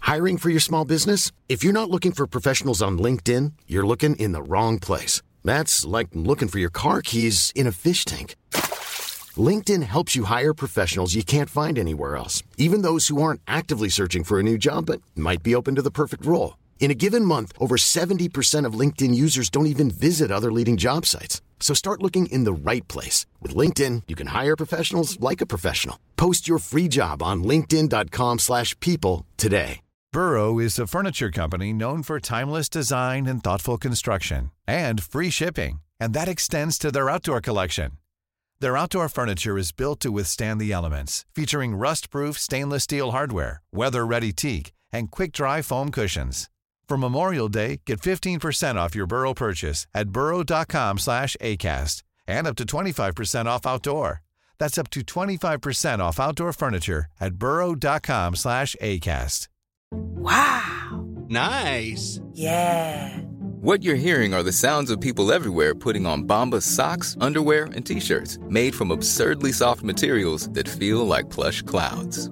Hiring for your small business? If you're not looking for professionals on LinkedIn, you're looking in the wrong place. That's like looking for your car keys in a fish tank. LinkedIn helps you hire professionals you can't find anywhere else, even those who aren't actively searching for a new job but might be open to the perfect role. In a given month, over 70% of LinkedIn users don't even visit other leading job sites. So start looking in the right place. With LinkedIn, you can hire professionals like a professional. Post your free job on linkedin.com slash people today. Burrow is a furniture company known for timeless design and thoughtful construction and free shipping, and that extends to their outdoor collection. Their outdoor furniture is built to withstand the elements, featuring rust-proof stainless steel hardware, weather-ready teak, and quick-dry foam cushions. For Memorial Day, get 15% off your Burrow purchase at burrow.com slash ACAST and up to 25% off outdoor. That's up to 25% off outdoor furniture at burrow.com slash ACAST. Wow. Nice. Yeah. What you're hearing are the sounds of people everywhere putting on Bombas socks, underwear, and t-shirts made from absurdly soft materials that feel like plush clouds.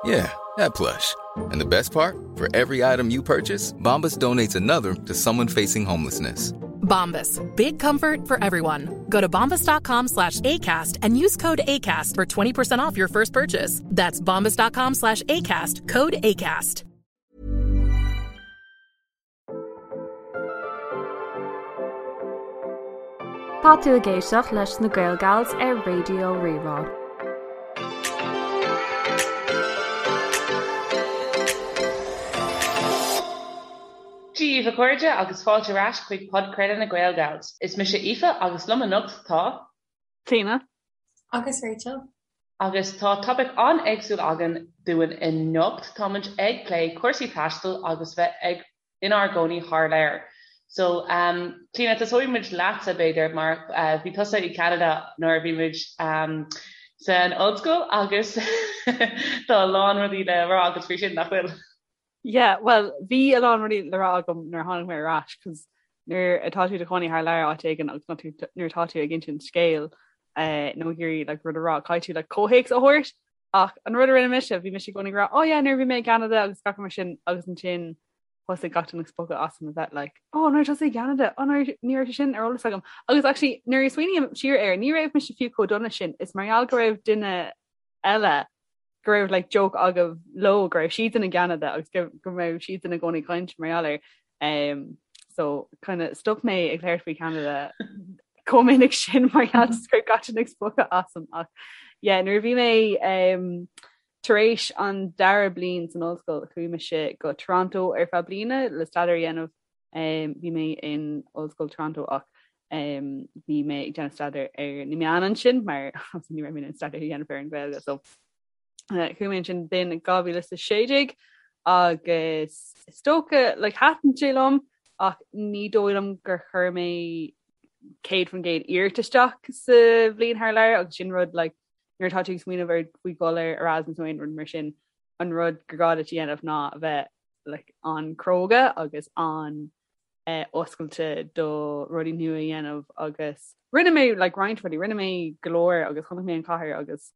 Yeah, that plush. And the best part? For every item you purchase, Bombas donates another to someone facing homelessness. Bombas. Big comfort for everyone. Go to bombas.com slash ACAST and use code ACAST for 20% off your first purchase. That's bombas.com slash ACAST. Code ACAST. Tá tú ag éisteacht leis na Gaelgals ar Raidió Rí-Rá. Dia daoibh a chairde agus fáilte ar ais chuig podchraoladh na Gaelgals. Is mise Aoife agus liom anocht tá. Clíona. Agus Rachel. Agus tá topaic an-éagsúil againn dúinn anocht. Táimid ag plé cúrsaí taistil agus bheith ag inár gcónaí thar lear. So, um, Clíona, tosóidh muid leatsa b'fhéidir mar uh, bhí tusa i Canada nuair a bhí muid um, san ollscoil agus tá a lán rudaí le rá agat faoi sin nach bhfuil. Yeah, well, bhí a lán rudaí le rá agam nuair a tháinig mé ar ais, cos nuair atá tú i do chónaí thar lear áit éigin agus nuair atá tú ag insint scéil eh, nó ag iarraidh like, rud a rá, caithfidh tú like, comhthéacs a thabhairt ach an rud a rinne mise, bhí mise i gcónaí ag rá, oh yeah, nuair a bhí mé i gCanada agus gach rud mar sin agus ansin thosaigh gach duine ag spochadh asam a bheith like, oh, nuair tusa i gCanada, oh, nuair ní raibh sé sin ar eolas agam. Agus actually, nuair a smaoiním siar air, ní raibh mise fiú chomh dona sin, is mar gheall go raibh duine eile go raibh like joke agaibh leo go raibh siadsan i gCeanada agus go go raibh siadsan i gcónaí ag caint mar gheall air. Um, so kind of stop mé ag labhairt faoi Canada chomh minic sin mar gheall go raibh gach duine ag spochadh asam ach yeah, nuair a bhí mé um, tar éis an dara bliain san ollscoil chuaigh mise go Toronto ar feadh bliana le staidéar a dhéanamh Um, bhí mé in Ollscoil Toronto ach um, bhí mé ag déanamh staidéar ar na meáin ansin mar ní raibh mé in staidéar a dhéanamh ar an Ghaeilge so uh, chuaigh mé ansin b'in 2016 agus is dócha like, thaitin sé liom ach ní dóigh liom gur chuir mé 100% iarracht isteach sa bhliain thar lear agus sin rud like, nuair atá tú ag smaoineamh ar faoi dhul ar Erasmus nó aon rud mar sin an rud gur gá duit a dhéanamh ná a bheith like, an-chróga agus an eh, oscailte do rudaí nua a dhéanamh agus rinne mé like, roinnt rudaí, rinne mé go leor agus chonaic mé an chathair agus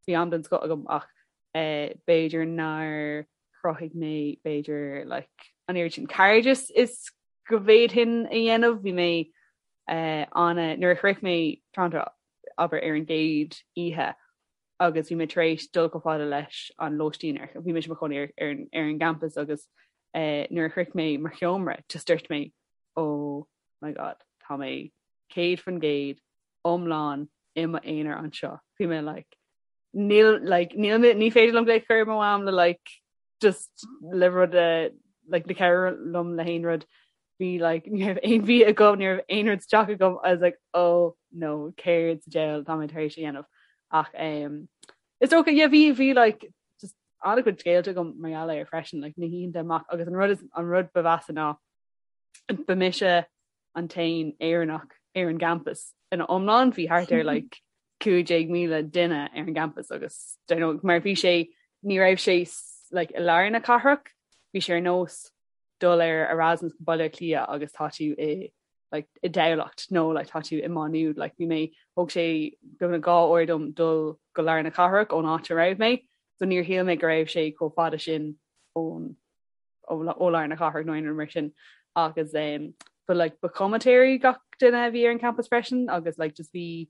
bhí am den scoth agam ach eh, b'fhéidir nár chruthaigh mé b'fhéidir like, an oiread sin cairdeas is go bhféadfainn a dhéanamh bhí mé eh, an nuair a shroich mé Toronto abair ar an gcéad oíche agus bhí mé tar éis dul chomh fada leis an lóistín ar bhí mise i mo chónaí ar ar ar an gcampas agus eh, nuair a shroich mé mo sheomra just dúirt mé oh my god tá mé 100% iomlán i m'aonar anseo. Bhí mé like níl like níl mé ní féidir liom glaoch a chur ar mo mham le like just le rud a like le cabhrú liom le haon rud bhí like ní raibh aon bhia agam ní raibh aon rud sa teach agam I was like oh no céard sa diabhal tá mé tar éis a dhéanamh ach um, is dócha yeah bhí bhí like just an-chuid scéalta agam mar gheall air freisin like na hoícheanta amach agus an rud is an rud ba mheasa ná ba mise an t-aon Éireannach ar an gcampas ina iomlán bhí thart ar like 15,000 duine ar an gcampas agus don't know, mar bhí sé ní raibh sé like i lár na cathrach bhí sé ar nós dul ar Erasmus go Baile Átha Cliath agus tá tú i like, i dTamhlacht nó like, tá tú i Má Nuad like, bhí mé thóg sé beagnach 2 uair dom dul go lár na cathrach ón áit a raibh mé so níor shíl mé go raibh sé chomh fada sin ón. ó lár na cathrach nó aon rud mar sin agus um, but like ba chomaitéirí gach duine a bhí ar an campus freisin agus like just bhí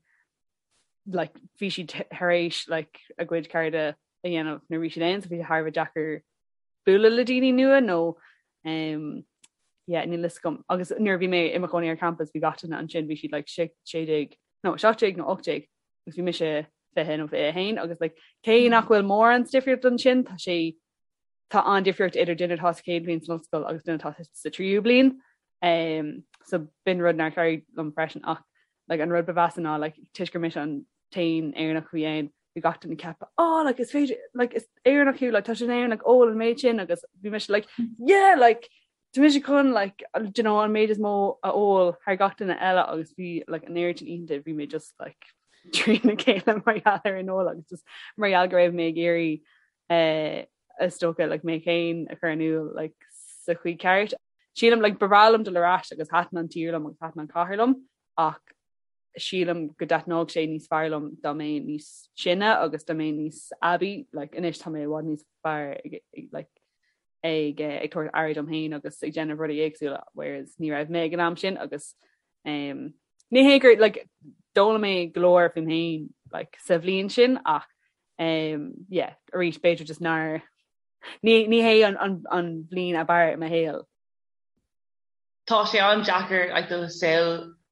like bhí siad tar éis like a gcuid cairde a dhéanamh nuair bhí siad ann so bhí sé thar a bheith deacair bualadh le daoine nua nó um, yeah, níl fhios agam agus nuair bhí mé i mo chónaí ar campus bhí gach duine ansin bhí siad like 16 nó 17 nó 18 agus bhí mise 20 nó 21 agus like cé nach bhfuil mórán difríocht ansin tá sé tá an-difríocht idir duine atá sa chéad bhliain san ollscoil agus duine atá sa tríú bliain. Um, so b'in rud nár chabhraigh liom freisin ach like, an rud ba mheasa ná like, toisc gur mise an t-aon Éireannach a bhí ann, bhí gach duine ag ceapadh oh, like, is féidir like, is Éireannach thú like, tá sé in Éirinn like, ól an méid sin agus bhí mise like, yeah like, tá mise chun like, do you know, an méid is mó a ól thar gach duine eile agus bhí like, an oiread sin oícheanta bhí mé just like, trína chéile mar gheall ar an ól agus just mar gheall go raibh mé ag iarraidh eh, is dócha like, mé féin a chur in iúl like, sa chaoi ceart. Sílim like, ba bhreá liom dul ar ais agus thaitin an tír liom agus thaitin an cathair liom ach sílim go dtaitneodh sé níos fearr liom dá mbeinn níos sine agus dá mbeinn níos aibí like, anois tá mé i bhfad níos fearr ag, ag, like, ag, eh, ag tabhairt aire dom féin agus ag déanamh rudaí éagsúla whereas ní raibh mé ag an am sin agus um, ní hé gur like, d'fhoghlaim mé go leor faoim féin like, sa bhliain sin ach um, yeah, arís b'fhéidir just nár ní, ní hé an, an, an bhliain ab fhearr i mo shaol. Tá sé an-deacair like, do shaol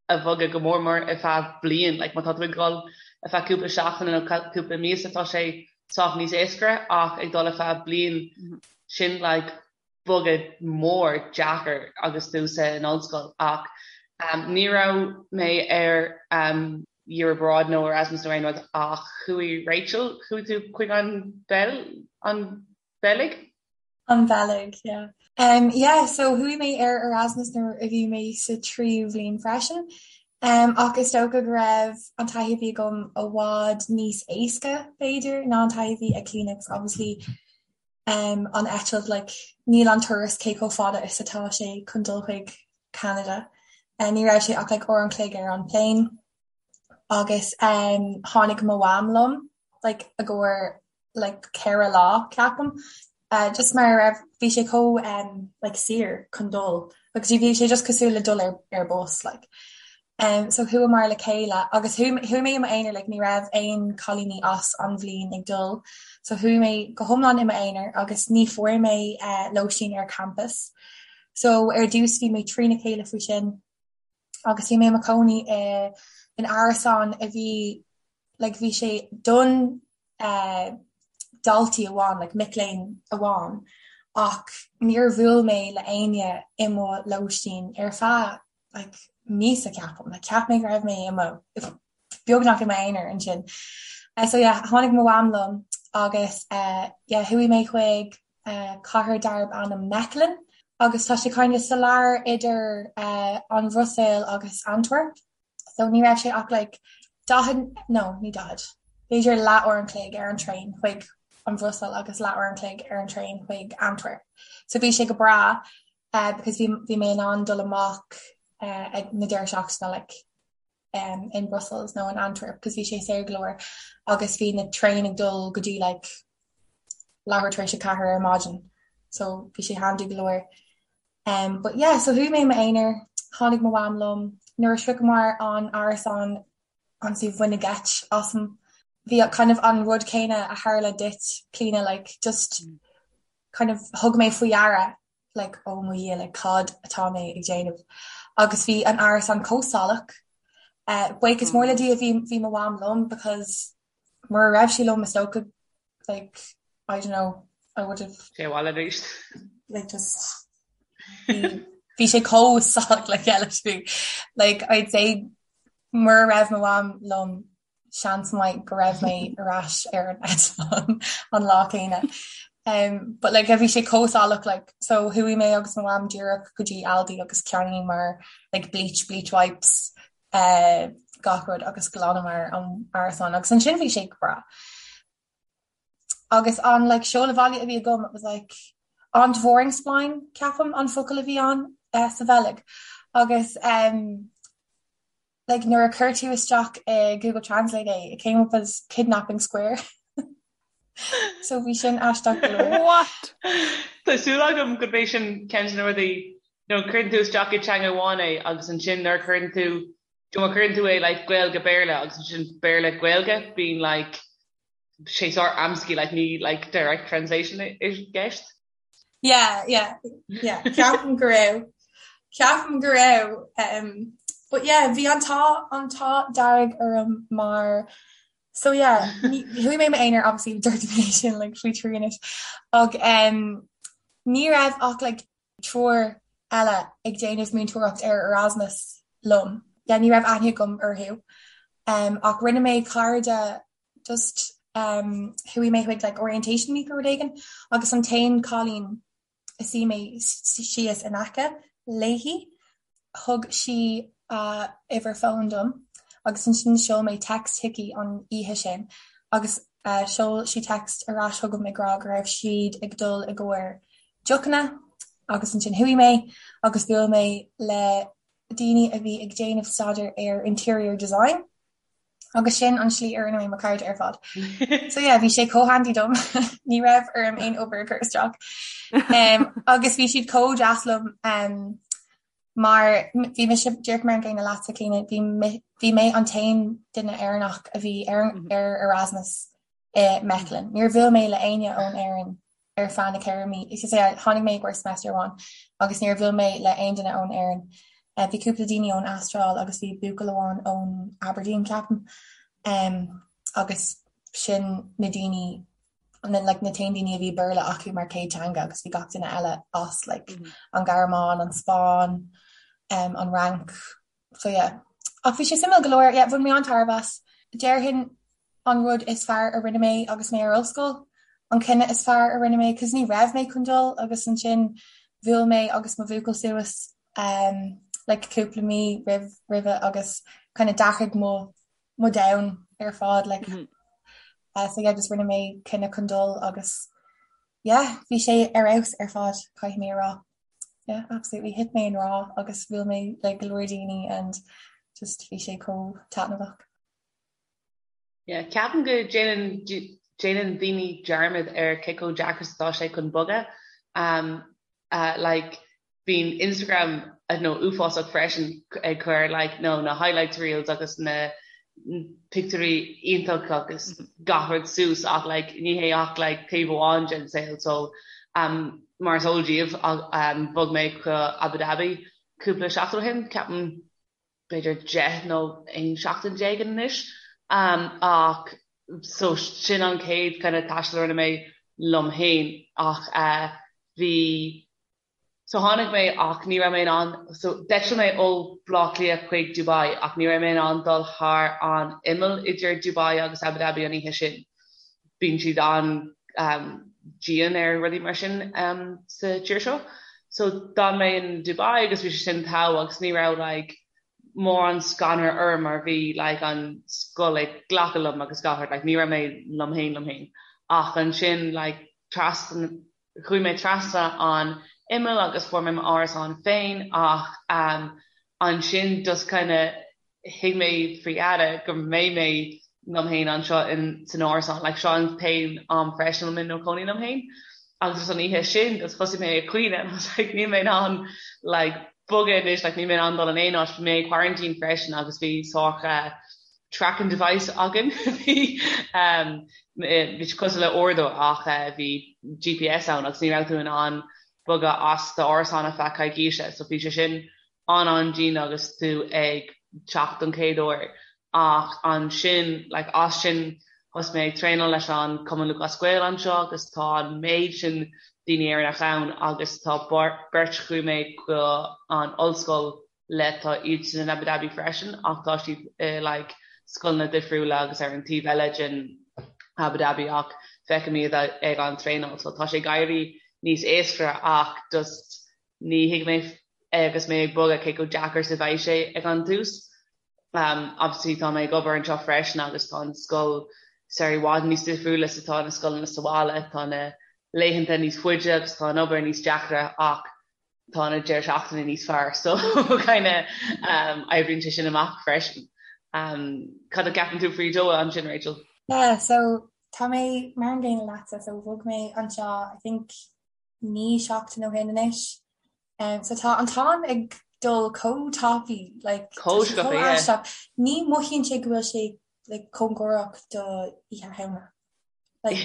a bhogadh go mór mór ar feadh bliain, like, má tá tú ag dul ar feadh cúpla seachtaine nó cúpla míosa tá sé sách níos éasca ach ag dul ar feadh bliain mm -hmm. sin like, bogadh mór deacair agus tú san ollscoil ach um, ní raibh mé ar um, Year Abroad nó Erasmus nó aon rud ach chuaigh Rachel, chuaigh tú chuig an Beil an Bheilg? An Bheilg, yeah. Um, yeah, so chuaigh mé ar Erasmus nuair a bhí mé sa tríú bhliain freisin. Um, ach is dócha go raibh an taithí a bhí agam i bhfad níos éasca b'fhéidir ná an taithí a bhí ag Clíona, obviously um, an eitilt like, níl an turas cé chomh fada is atá sé chun dul chuig Canada. Uh, ní raibh sé ach like, uair an chloig ar an plane agus um, tháinig mo mham liom like, i gcomhair like, 4 lá ceapaim. Uh, just mar raibh bhí sé chomh um, like, saor chun dul agus bhí sé just cosúil le dul ar, ar bus like. Um, so chuamar le chéile agus chuaigh mé i m'aonar like, ní raibh aon cailíní as an bhliain ag dul, so chuaigh mé go hiomlán i m'aonar agus ní fuair mé uh, lóistín ar campus. So ar dtús bhí mé trína chéile faoi sin agus bhí mé i mo chónaí i in árasán a bhí like, bhí sé don uh, daltaí amháin, like, mic léinn amháin, ach níor bhuail mé le éinne i mo lóistín ar feadh like, míosa ceapaim, like, cheap mé go raibh mé i mo beagnach i m'aonar ansin. Uh, so yeah, tháinig mo mham liom agus uh, yeah, chuaigh mé chuig uh, cathair darb ainm Mechelen agus tá sé kind of sa lár idir uh, an Bhruiséil agus Antwerp. So ní raibh sé ach like 40 no ní 40 b'fhéidir leathuair an chloig ar an traein chuig an Bhruiséil agus leathuair an chloig ar an traein chuig Antwerp. So bhí sé go breá uh, because bhí bhí mé in ann dul amach uh, ag na deireadh seachtaine like, um, in Brussels nó in Antwerp because bhí sé saor go leor agus bhí na traein ag dul go dtí like, leathuair tar éis a 4 ar maidin so bhí sé handy go leor. Um, but yeah, so chuaigh mé i m'aonar, tháinig mo mham liom, nuair a shroicheamar an árasán honestly baineadh geit asam. Bhí kind of an rud céanna a tharla duit, Clíona, like just kind of thug mé faoi deara like oh mo Dhia like cad atá mé ag déanamh agus bhí an árasán chomh salach. Uh, buíochas mór le Dia bhí bhí mo mham liom because mura raibh sí liom is dócha like I don't know I would have Sé abhaile arís. like just bhí sé chomh salach le chéile like I'd say mura raibh mo mham liom seans maith go raibh mé ar ais ar an eitleán an lá céanna. Um, but like bhí sé chomh salach like so chuaigh mé agus mo mham díreach go dtí Aldi agus cheannaíomar like bleach, bleach wipes, uh, gach rud agus ghlanamar an árasán agus ansin bhí sé go breá. Agus an like seoladh bhaile a bhí agam it was like Ontvoeringsplein ceapaim an focal a bhí ann uh, sa Bheilg agus um, like nuair a chuir tú isteach i Google Translate é, it came up as kidnapping square. So bhí sin aisteach go leor. What? Tá súil agam gurb é sin ceann de na rudaí nó cuireann tú isteach i teanga amháin é agus ansin nuair a chuireann tú má chuireann tú é like Gaeilge Béarla agus ansin Béarla Gaeilge bíonn like sé sórt amscaí like ní like direct translation i gceist. Yeah, yeah, yeah. Ceapaim go raibh. Ceapaim go raibh. Um, but yeah, bhí an t-ádh an t-ádh dearg orm mar so yeah, chuaigh mé m'aonar obviously dúirt mé sin like faoi thrí anois. Ach um, ní raibh ach like triúr eile ag déanamh múinteoireacht ar Erasmus liom. Yeah, ní raibh aithne agam orthu. Um, ach rinne mé cairde just um, chuaigh mé chuig like orientation week nó rud éigin agus an t-aon cailín a suigh mé síos in aice léi thug sí a uimhir fóin dom agus ansin sheol mé text chuici an oíche sin agus uh, sheol sí text ar ais chugam ag rá go raibh siad ag dul i gcomhair deochanna agus ansin chuaigh mé agus bhuail mé le daoine a bhí ag déanamh staidéar ar interior design Agus sin an slí a rinne mé mo cairde ar fad. So yeah, bhí sé chomh handy dom ní raibh orm aon obair a chur isteach. Um, agus bhí siad chomh deas liom um, mar bhí mise díreach mar an gcéanna leatsa Clíona, bhí bhí mé an t-aon duine Éireannach a bhí ar, mhm. ar Erasmus i Mechelen. Níor bhuail mé le éinne ón Éirinn ar feadh na ceithre mí. Is é tháinig mé i gcomhair semester amháin agus níor bhuail mé le aon duine ón Éirinn. Eh, bhí cúpla daoine ón Astráil agus bhí buachaill amháin ón Aberdeen ceapaim. Um, agus sin na daoine na, like, na t-aon daoine a bhí Béarla acu mar chéad teanga agus bhí gach duine eile as like, mm -hmm. an Ghearmáin, an Spáinn, um, an Fhrainc. So yeah. Ach bhí sé suimiúil go leor, yeah, bhain mé an-tairbhe as. Déarfainn an rud is fearr a rinne mé agus mé ar ollscoil, an cinneadh is fearr a rinne mé, cos ní raibh mé chun dul agus ansin bhuail mé agus mo bhuachaill suas um, like cúpla mí roimh roimhe agus kind of d'athraigh mo mo domhan ar fad like mm -hmm. uh, so yeah, just rinne mé cinneadh chun dul agus yeah, bhí sé ar fheabhas ar fad caithfidh mé a rá. Yeah, absolutely. Thit mé i ngrá agus bhuail mé le go leor daoine and just bhí sé chomh taitneamhach. Yeah, ceapaim go déanann déanann daoine dearmad ar cé chomh deacair is atá sé chun bogadh. Um, uh, like, bíonn Instagram I don't know, uafásach freisin ag cur like, no, na highlights reels agus na pictiúirí iontach agus mm -hmm. gach rud suas ach like, ní hé ach like, taobh amháin den saol so um, mar is eol daoibh um, bhog mé go Abu Dhabi cúpla seachtain ó shin ceapaim b'fhéidir 10 nó 11 seachtain anois ach so sin an chéad kind of taisteal a rinne mé liom féin ach eh bhí so tháinig mé ach ní raibh mé in ann so d'eitil mé ó Bhaile Átha Cliath chuig Dubai ach ní raibh mé in ann dul thar an imeall idir Dubai agus Abu Dhabi an oíche sin. Bíonn siad an-dian ar rudaí mar sin sa tír seo. So d'fhan mé in Dubai agus bhí sé sin togha agus ní raibh like mórán scanradh orm mar bhí like an scoil ag glacadh liom agus gach rud like ní raibh mé liom féin liom féin. Ach ansin like trasna chuaigh mé trasna an imeall agus fuair mé m'árasán féin ach um ansin just kind of thuig mé faoi dheireadh go mbeidh mé liom féin anseo in san árasán like seo an t-aon am freisin a bhfuil mé i mo chónaí liom féin agus just an oíche sin just thosaigh mé ag caoineadh and I was like níl mé in ann like bogadh anois like níl mé in ann dul in aon áit bhí mé i quarantine freisin agus bhí sórt uh, tracking device againn bhí um, bhí sé cosúil le uaireadóir ach uh, bhí GPS ann agus ní raibh tú in ann bogadh as d'árasán ar feadh coicíse so bhí sé sin an-an-dian agus tú ag teacht don chéad uair ach ansin like as sin thosaigh mé ag traenáil leis an Cumann Lúthchleas Gael anseo agus tá an méid sin daoine Éireannach ann agus tá beirt chuaigh mé go an ollscoil le tá iadsan in Abu Dhabi freisin ach tá siad i like scoileanna difriúla agus ar an taobh eile den Abu Dhabi ach feicim iad ag an traenáil so tá sé ag éirí níos éasca ach just Ní thuig mé agus mé ag bogadh cé chomh deacair is a bheidh sé ag an tús. Obviously tá mé ag obair anseo freisin agus tá an scoil sórt i bhfad níos difriúla is atá na scoileanna sa bhaile. Tá na laethanta níos faide agus tá an obair níos deacra ach tá na deireadh seachtaine níos fearr so kind of oibríonn sé sin amach freisin. Cad a cheapann tú faoi Doha ansin Rachel? Yeah, so. Tá mé mar an gcéanna leatsa, so bhog mé anseo I think 9 seachtain ó shin anois. Um, so tá an t-am ag dul chomh tapaidh, like, tá Chomh sé sciobtha, chomh yeah. aisteach. Ní mothaíonn sé go bhfuil sé like, cóngarach do Oíche Shamhna. Like,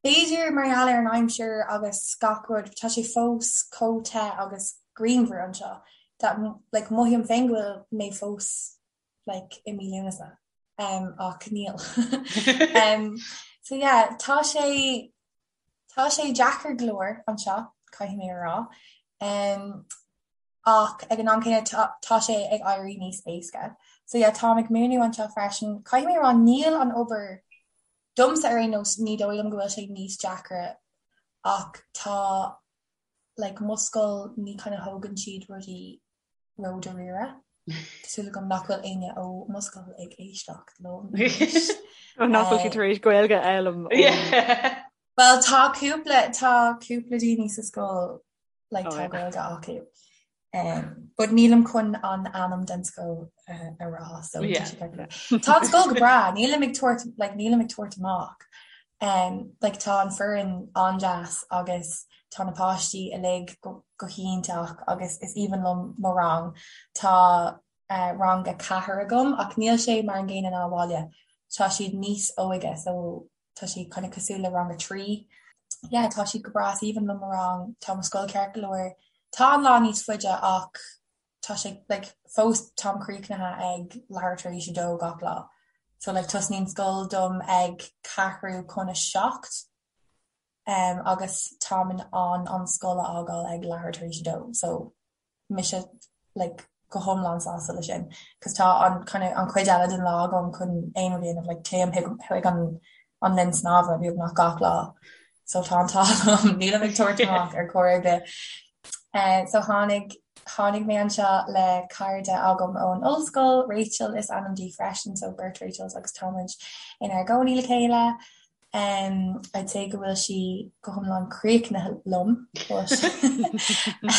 b'fhéidir mar gheall ar an aimsir agus gach rud, tá sé fós chomh te agus grianmhar anseo that like, mothaím féin go bhfuil mé fós like i mí Lúnasa um ach níl. um so yeah tá sé tá sé deacair go leor anseo caithfidh mé a rá um ach ag an am céanna tá tá sé ag éirí níos éasca. So yeah táim ag múineadh anseo freisin. Caithfidh mé a rá níl an obair domsa ar aon nós ní dóigh liom go bhfuil sé níos deacra ach tá like mo scoil ní kind of thógann siad rudaí ródháiríre. Tá súil agam nach bhfuil éinne ó mo scoil ag éisteacht liom anois. Ó nach bhfuil siad tar éis Gaeilge a fhoghlaim Yeah. Well tá cúpla tá cúpla daoine sa scoil like Oh tá yeah. Gaeilge acu. Um, but nílim chun an ainm den scoil uh, a rá so tá Yeah. sé ceart go leor. Tá an scoil go breá, nílim ag tabhairt like nílim ag tabhairt amach. Um, like tá an foireann an-deas agus tá na páistí uilig go, go hiontach agus is aoibhinn liom mo rang. Tá uh, rang a ceathair agam ach níl sé mar an gcéanna ná abhaile. Tá siad níos óige so tá sé kind of cosúil le rang a 3. Yeah, tá siad go breá, is aoibhinn liom mo rang, tá mo scoil ceart go leor. Tá an lá níos faide ach tá sé like fós táim críochnaithe ag leathuair tar éis a dó gach lá. So like tosnaíonn scoil dom ag ceathrú chun a 7 um, agus táim in ann an scoil a fhágáil ag leathuair tar éis a dó. So mise like go hiomlán sásta le sin cos tá an kind of an chuid eile den lá agam chun aon rud a dhéanamh like téim chuig an an linn snámha beagnach gach lá so tá an t-ádh liom nílim ag tabhairt amach ar chor ar bith. Uh, so tháinig tháinig mé anseo le cairde agam ón ollscoil, Rachel is ainm di freisin, so beirt Rachels agus táimid inár gcónaí le chéile. Um, I'd say go bhfuil sí go hiomlán críochnaithe liom but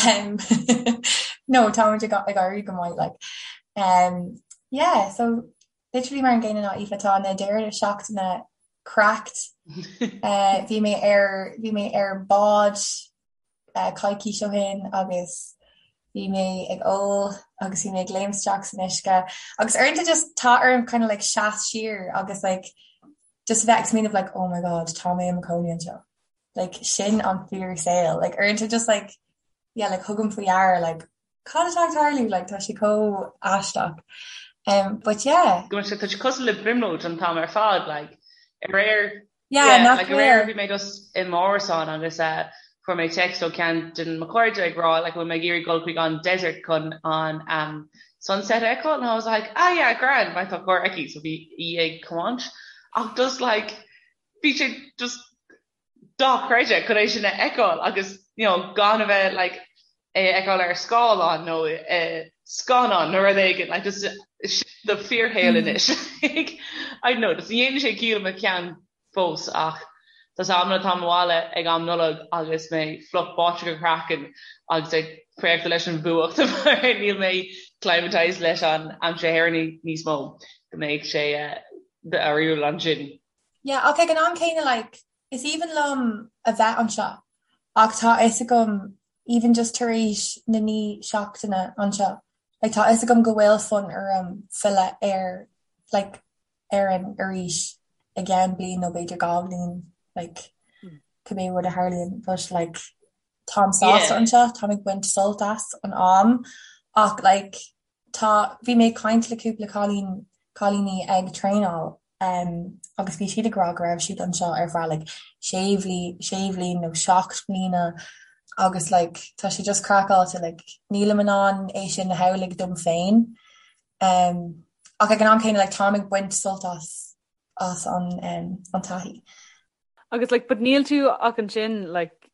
um, no táimid ag ag éirí go maith like. Um, yeah, so literally mar an gcéanna ná Aoife tá na deireadh seachtaine cracked. Uh, bhí mé ar bhí mé ar bád uh, coicís ó shin agus bhí mé ag ól agus bhí mé ag léim isteach san uisce agus uaireanta just tá orm kind of like seas siar agus like just a bheith ag smaoineamh like oh my god tá mé i mo chónaí anseo like sin an fíor saol like uaireanta just like yeah like thugaim faoi deara like cad atá ag tarlú like tá sé chomh aisteach um but yeah Go bhfuil sé tá sé cosúil le brionglóid an t-am ar fad like aréir yeah Yeah, nach like aréir bhfuil bhí mé just i m'árasán agus uh, fuair mé text ó ceann de mo chairde ag rá like bhfuil mé ag iarraidh dul chuig an desert chun an um, sunset a fheiceáil and I was like ah yeah grand mar tá carr aici so bhí í ag tiomáint ach just like bhí sé just dochreidte chun é sin a fheiceáil agus you know gan a bheith like é a fheiceáil ar scáileán nó i scannán nó rud éigin like just sin do fíorshaol anois like I don't know just ní dhéanann sé ciall i mo cheann fós ach tá 's amanna táim abhaile ag am Nollag agus mé fliuch báite go craiceann agus ag préachta leis an bhfuacht mar níl mé climatized leis an aimsir Éireannach níos mó go mbeidh sé difriúil ansin. Yeah ach ag an am céanna like is aoibhinn liom a bheith anseo ach tá fhios agam even just tar éis na naoi seachtaine anseo like tá fhios agam go bhfuil fonn orm filleadh ar like Éirinn arís i gceann bliain nó b'fhéidir 2 bhliain like cibé rud a tharlaíonn but like táim sásta anseo, táim ag baint sult as an am ach like tá bhí mé ag caint le cúpla cailín cailíní ag traenáil um agus bhí siad ag rá go raibh siad anseo ar feadh like sé bhli sé bhliain nó 7 mbliana agus like tá sé just craiceáilte like nílim in ann é sin a shamhlú dom féin Um, ach ag an am céanna like, táim ag baint sult as as an um, an taithí. Agus like, but níl tú ach ansin like,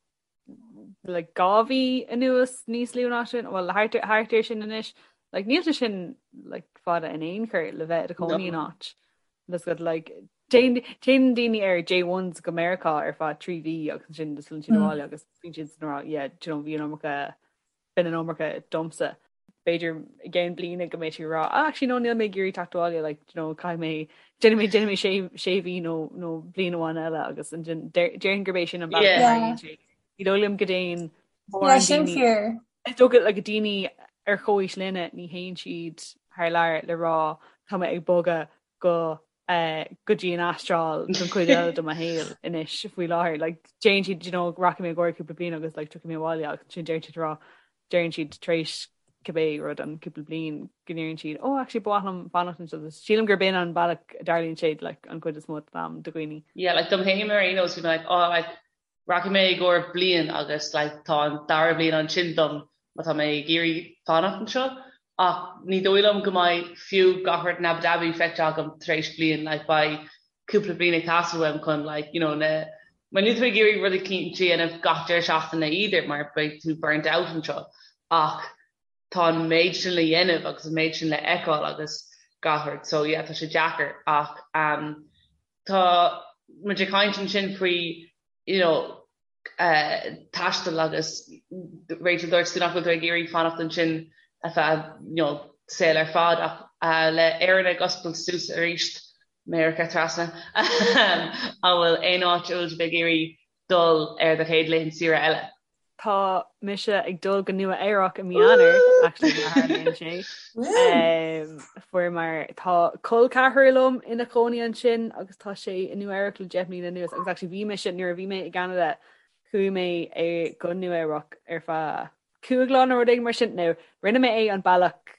like 2 mhí anuas níos lú ná sin, well thart thart ar sin anois, like, níl sé sin like, fada in aon chor le bheith i do chónaí in áit. That's good, like, téann téann daoine ar J1s go Meiriceá ar feadh 3 mhí agus ansin just filleann siad abhaile agus bíonn siad ag rá, yeah, do you know, bhí an iomarca, b'in an iomarca domsa. b'fhéidir i gceann bliana go mbeidh tú ag rá ah actually no níl mé ag iarraidh teacht abhaile like you know caithfidh mé déanfaidh mé déanfaidh mé sé sé mhí nó nó bliain amháin eile agus ansin déarfainn gurb é sin an bealach a tharlaíonn sé. Ní dóigh liom go dtéann Yeah, sin fíor. Is dócha like daoine ar chomhaois linne ní théann siad thar lear le rá tá mé ag bogadh go go dtí an Astráil don chuid eile de mo shaol anois faoi láthair. Like, déanann siad, you know, rachaidh mé i gcomhair cúpla bliain agus like, tiocfaidh mé abhaile agus ansin deireann siad rá, deireann siad tar éis cibé rud an cúpla bliain go ndeireann siad, oh actually ba mhaith liom fanacht anseo. Sílim gurb in an bealach a dtarlaíonn sé like, an chuid is mó den am do dhaoine. Yeah, like dom féin ar aon nós bhí mé like, oh like rachaidh mé i gcomhair bliain agus like tá an dara bliain ansin dom má tá mé ag iarraidh fanacht anseo ach ní dóigh liom go mbeidh fiú gach rud in Abu Dhabi feicthe agam tar éis bliain like beidh cúpla bliain ag teastáil uaim chun like you know na mar níl tú ag iarraidh rudaí eicínt a dhéanamh gach deireadh seachtaine either mar beidh tú burnt out anseo ach tá an méid sin le dhéanamh agus an méid sin le fheiceáil agus gach rud so yeah tá sé deacair ach um Tá muid ag caint ansin faoi you know taisteal agus Rachel dúirt tú nach bhfuil tú ag iarraidh fanacht ansin ar feadh you know saol ar fad ach le Éirinn ag oscailt suas arís, Meiriceá trasna, an bhfuil aon áit a bhfuil sibh ag iarraidh dul ar do chéad laethanta saoire eile? Tá mise ag dul go Nua Eabhrac i mí Eanáir, actually, má tharlaíonn sé. Fuaireamar, tá col ceathrar liom ina chónaí ansin agus tá sé i Nua Eabhrac le 10 mbliana anuas agus actually bhí mise, nuair a bhí mé i gCeanada, chuaigh mé go Nua Eabhrac ar feadh 5 lá nó rud éigin mar sin. Now, rinne mé é an bealach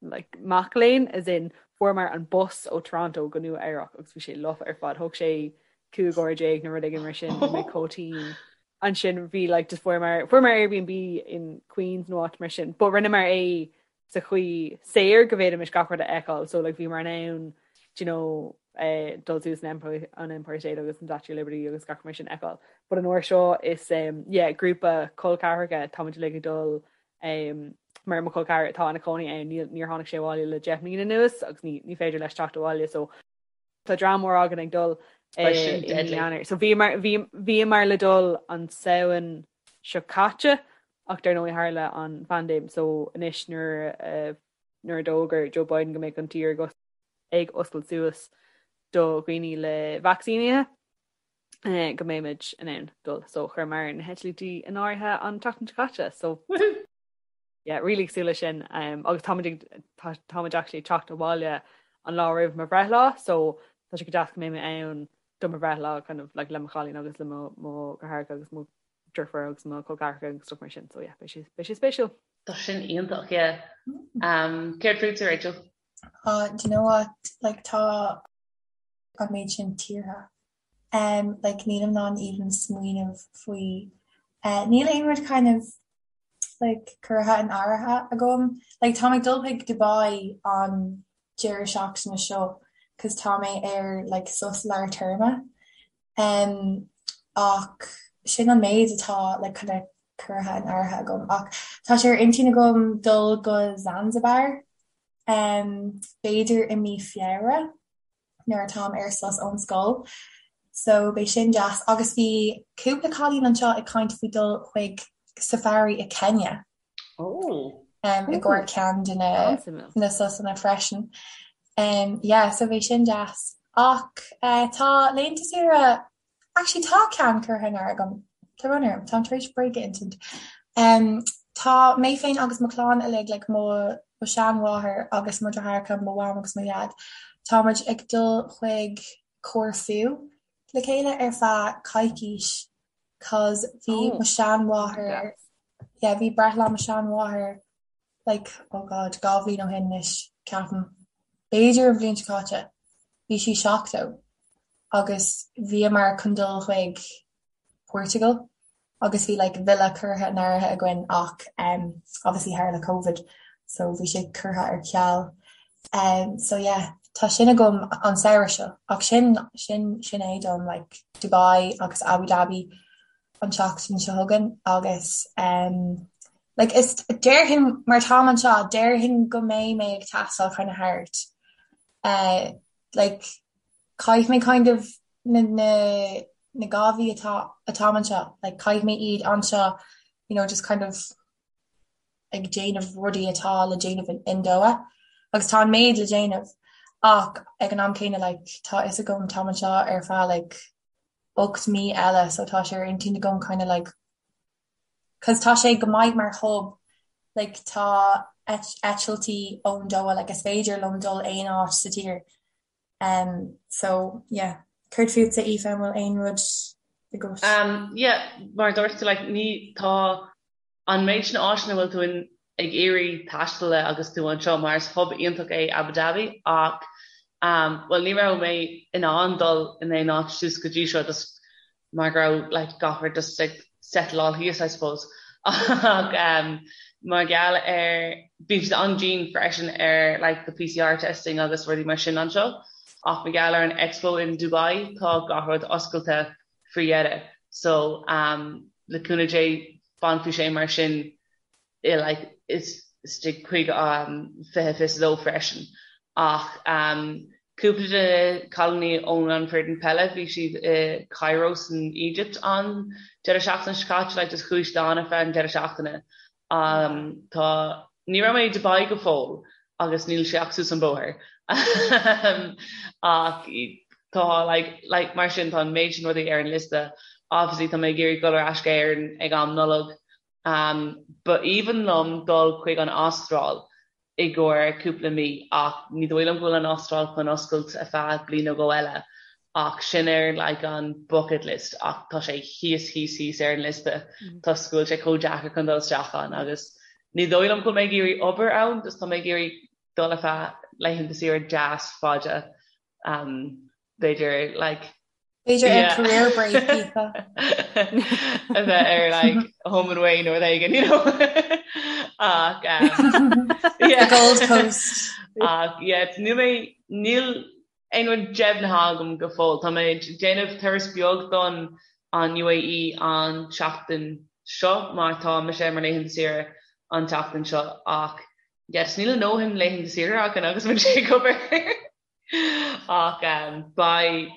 like mac léinn, as in fuaireamar an bus ó Toronto go Nua Eabhrac agus bhí sé lofa ar fad, thóg sé 15 uair nó rud éigin mar sin, bhí mé chomh tinn. Ansin bhí like just fuaireamar fuaireamar Airbnb in Queens nó áit mar sin, but rinneamar é sa chaoi saor go bhféadfaimis gach rud a fheiceáil, so like bhíomar in ann do you know eh, dul suas an Empire, an Empire State agus an Statue of Liberty agus gach mar sin a fheiceáil. But an uair seo is um, yeah, grúpa col ceathracha táimid uilig ag dul Mar mo chol ceathrar atá ina chónaí ann, níor tháinig sé abhaile le 10 mbliana anuas agus ní féidir leis teacht abhaile so tá dream mór againn ag dul i mí Eanáir. So bhíomar le dul an Samhain seo caite ach dar ndóigh tharla an phaindéim so anois nuair nuair a d'fhógair Joe Biden go mbeadh an tír ag oscailt suas do dhaoine le vacsaínithe, go mbeimid in ann dul. So chuireamar na heitiltí in áirithe an tseachtain seo caite. So woohoo! Yeah, really ag súil leis sin. Um, agus táimid ag táimid actually ag teacht abhaile an lá roimh mo bhreithlá, so tá sé go deas go mbeidh mé ann do mo bhreithlá kind of like le mo chailín agus le mo mo dheartháireacha agus mo deirfiúr agus mo chol ceathracha agus stuff mar sin. So yeah, beidh sé beidh sé spéisiúil. Tá sin iontach, yeah. Um, céard fútsa, Rachel? Uh, do you know what? Like tá an méid sin tíortha. Um like nílim in ann even smaoineamh faoi eh níl aon rud kind of like curtha in áirithe agam. Like tá mé ag dul chuig Dubai an deireadh seachtaine seo cos tá mé ar like sos lár téarma. Um ach sin an méid atá like kind of curtha in áirithe agam. Ach tá sé ar intinn agam dul go Zanzibar um b'fhéidir i mí Feabhra. nuair atáim ar sos ón scoil so beidh sin deas agus bhí cúpla cailín anseo ag caint faoi dul chuig safari i Kenya Oh. um, i gcomhair ceann de na na sosanna freisin. Um, yeah, so beidh sin deas. Ach uh, tá laethanta saoire Actually tá ceann curtha in áirithe agam. Tá brón orm, táim tar éis bréag a insint. Um, tá mé féin agus mo chlann uilig, like mo mo sheanmháthair agus mo dheartháireacha, mo mham agus mo dhaid, tá muid ag dul chuig Corfu le chéile ar feadh coicís cos bhí oh, mo sheanmháthair, yeah, bhí breithlá mo sheanmháthair like, oh God, 2 bhliain ó shin anois, ceapaim. B'fhéidir an bhliain seo caite. Bhí sí 70 agus bhíomar chun dul chuig Portugal agus bhí like villa curtha in áirithe againn ach um, obviously tharla Covid so bhí sé curtha ar ceal. Um, so yeah, tá sin agam an samhradh seo ach sin sin sin é dom like Dubai agus Abu Dhabi an tseachtain seo chugainn agus um, like is déarfainn mar táim anseo déarfainn go mbeidh mé ag taisteal kind of thart uh, like caithfidh mé kind of na na na 2 mhí atá atáim anseo like caithfidh mé iad anseo you know just kind of. ag déanamh rudaí atá le déanamh in Doha agus tá an méid le déanamh ach ag an am céanna like tá fhios agam táim anseo ar feadh like 8 mí eile so tá sé ar intinn agam kind of like cause tá sé go maith mar hub like tá eitiltí ón Doha like is féidir liom dul aon áit sa tír um so yeah céard fútsa Aoife an bhfuil aon rud agat? Um yeah mar dúirt tú like ní tá an méid sin áiteanna a bhfuil tú in ag iarraidh taisteal le agus tú anseo mar is hub iontach é Abu Dhabi ach um bhuel ní raibh mé in ann dul in aon áit suas go dtí seo just mar go raibh like gach rud just ag settleáil thíos I suppose ach um mar gheall ar bíonn siad an-dian freisin ar like the PCR testing agus rudaí mar sin anseo ach mar gheall ar an Expo in Dubai tá gach rud oscailte faoi dheireadh so um le cúnamh Dé fanfaidh sé mar sin i like istigh chuig um 2022 freisin ach um cúpla de na cailíní ón an foireann peile bhí siad i Cairo san Egypt an deireadh seachtaine seo caite like just chuaigh siad ann ar feadh an deireadh seachtaine um tá ní raibh mé i Dubai go fóill agus níl sé ach suas an bóthar ach tá like like mar sin tá an méid sin rudaí ar an liosta obviously tá mé ag iarraidh dul ar ais go Éirinn ag am Nollag um ba aoibhinn liom dul chuig an Astráil i gcomhair cúpla mí ach ní dóigh liom go bhfuil an Astráil chun oscailt ar feadh bliain nó dhó eile ach sin ar like an bucket list ach tá sé thíos thíos thíos ar an liosta toisc go bhfuil sé chomh deacair chun dul isteach ann agus ní dóigh liom go bhfuil mé ag iarraidh obair ann just tá mé ag iarraidh dul ar feadh laethanta saoire deas fada um b'fhéidir like B'fhéidir ar career break Aoife. A bheith ar like home and away nó rud éigin you know ach um yeah. The Gold Coast. Ach yeah níl mé níl aon rud deimhnithe agam go fóill. Tá mé ag déanamh turas beag don an UAE an tseachtain seo mar tá mise ar mo laethanta saoire an tseachtain seo ach yes níl a ndóthain laethanta saoire againn agus muid ag obair ach um, beidh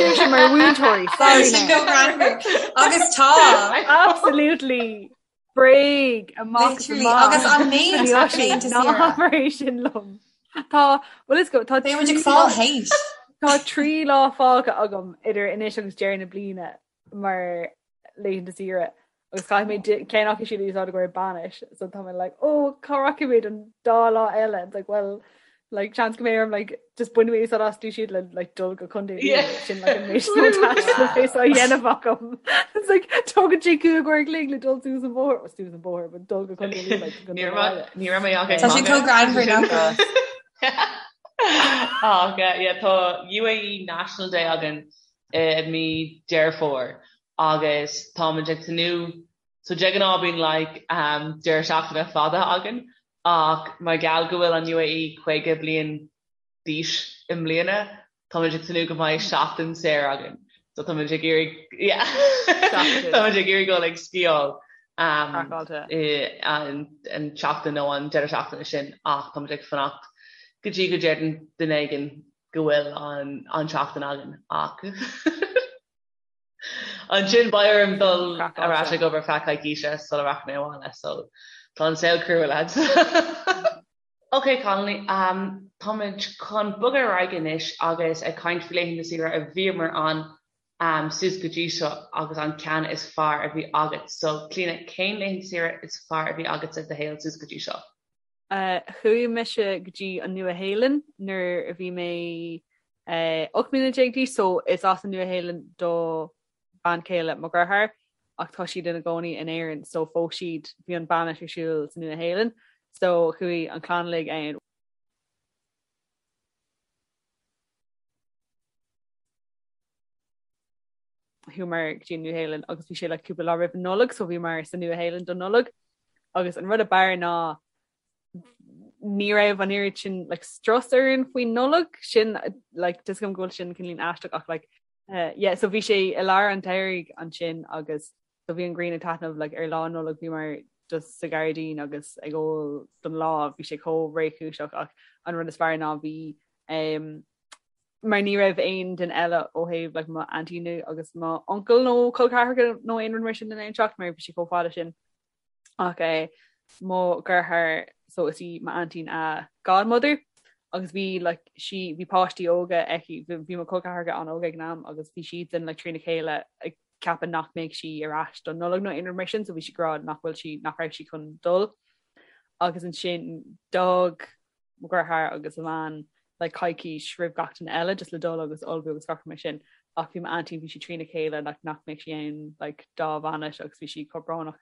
Sin mar mhúinteoirí agus tá absolutely bréag amach agus an méid sin liom. Tá well is go tá ag fáil hate. Tá trí lá fágtha agam idir anois agus deireadh na bliana mar laethanta saoire agus caithfidh mé ceann acu siúd a úsáid i gcomhair bainis so tá mé like oh cá rachaidh mé don dá lá eile it's like well like chance go mbeidh orm like just bainfidh mé úsáid astu siúd le like dul go Contae yeah. sin like an méid a dhéanamh agam it's like tógann sé cúig uair an chloig le dul suas an bóthar suas an bóthar but dul go Contae Lú like ní raibh mé ach Tá sé chomh greannmhar nach Ach yeah tá UAE National Day againn i mí Deireadh Fómhair agus táimid ag tnúth so de ghnáth bíonn like um deireadh seachtaine fada againn ach mar gheall go bhfuil an UAE 50 bliain d'aois i mbliana táimid ag tnúth go mbeidh seachtain saor againn so táimid ag iarraidh yeah táimid ag iarraidh dul ag sciáil um i an an tseachtain nó an deireadh seachtaine sin ach táimid ag fanacht go dtí go ndeireann duine éigin go bhfuil an an tseachtain againn ach ansin beidh orm dul ar ais ag obair feadh coicíse sula rachaidh mé abhaile so tá an saol crua lads. Ok cailíní, um, táimid chun bogadh ar aghaidh anois agus ag caint faoi laethanta saoire a bhíomar ann um, suas go dtí seo agus an ceann is fearr a bhí agat. So Clíona, cén laethanta saoire is fearr a bhí agatsa i do shaol suas go dtí seo? Chuaigh mise go dtí an Nua-Shéalainn nuair a bhí mé 18 mbliana d'aois so is as an Nua-Shéalainn do bhean chéile mo dheartháir ach tá siad ina gcónaí in Éirinn so phós siad, bhí an bainis ar siúl sa Nua-Shéalainn so chuaigh an chlann uilig ann. Chuamar go dtí an Nua-Shéalainn agus bhí sé like cúpla lá roimh an Nollaig so bhíomar sa Nua-Shéalainn don Nollaig agus an rud ab fhearr ná ní raibh an oiread sin like strus orainn faoin Nollaig sin like tá a fhios agam go bhfuil sin cineál aisteach ach like uh, yeah so bhí sé i lár an tsamhraidh ansin agus so bhí an ghrian ag taitneamh like ar lá Nollag bhíomar just sa ghairdín agus ag ól don lá bhí sé chomh réchúiseach ach an rud is fearr ná bhí um, mar ní raibh aon duine eile ó thaobh like mo aintín agus mo uncail nó col ceathracha nó aon rud mar sin in ann teacht mar bhí sé chomh fada sin ach eh, mo dheartháir so is í m'aintín a godmother agus bhí like sí bhí páistí óga aici bhí mo chol ceathracha an-óg ag an am agus bhí siadsan like trína chéile ag ceapadh nach mbeadh sí ar ais don Nollaig nó aon rud mar sin so bhí sí ag rá nach bhfuil sí nach raibh sí chun dul agus ansin d'fhág mo dheartháir agus a bhean like coicís roimh gach duine eile just le dul agus ullmhú agus gach rud mar sin ach bhí m'aintín bhí sí trína chéile like nach mbeadh sí ann like dá bhainis agus bhí sí chomh brónach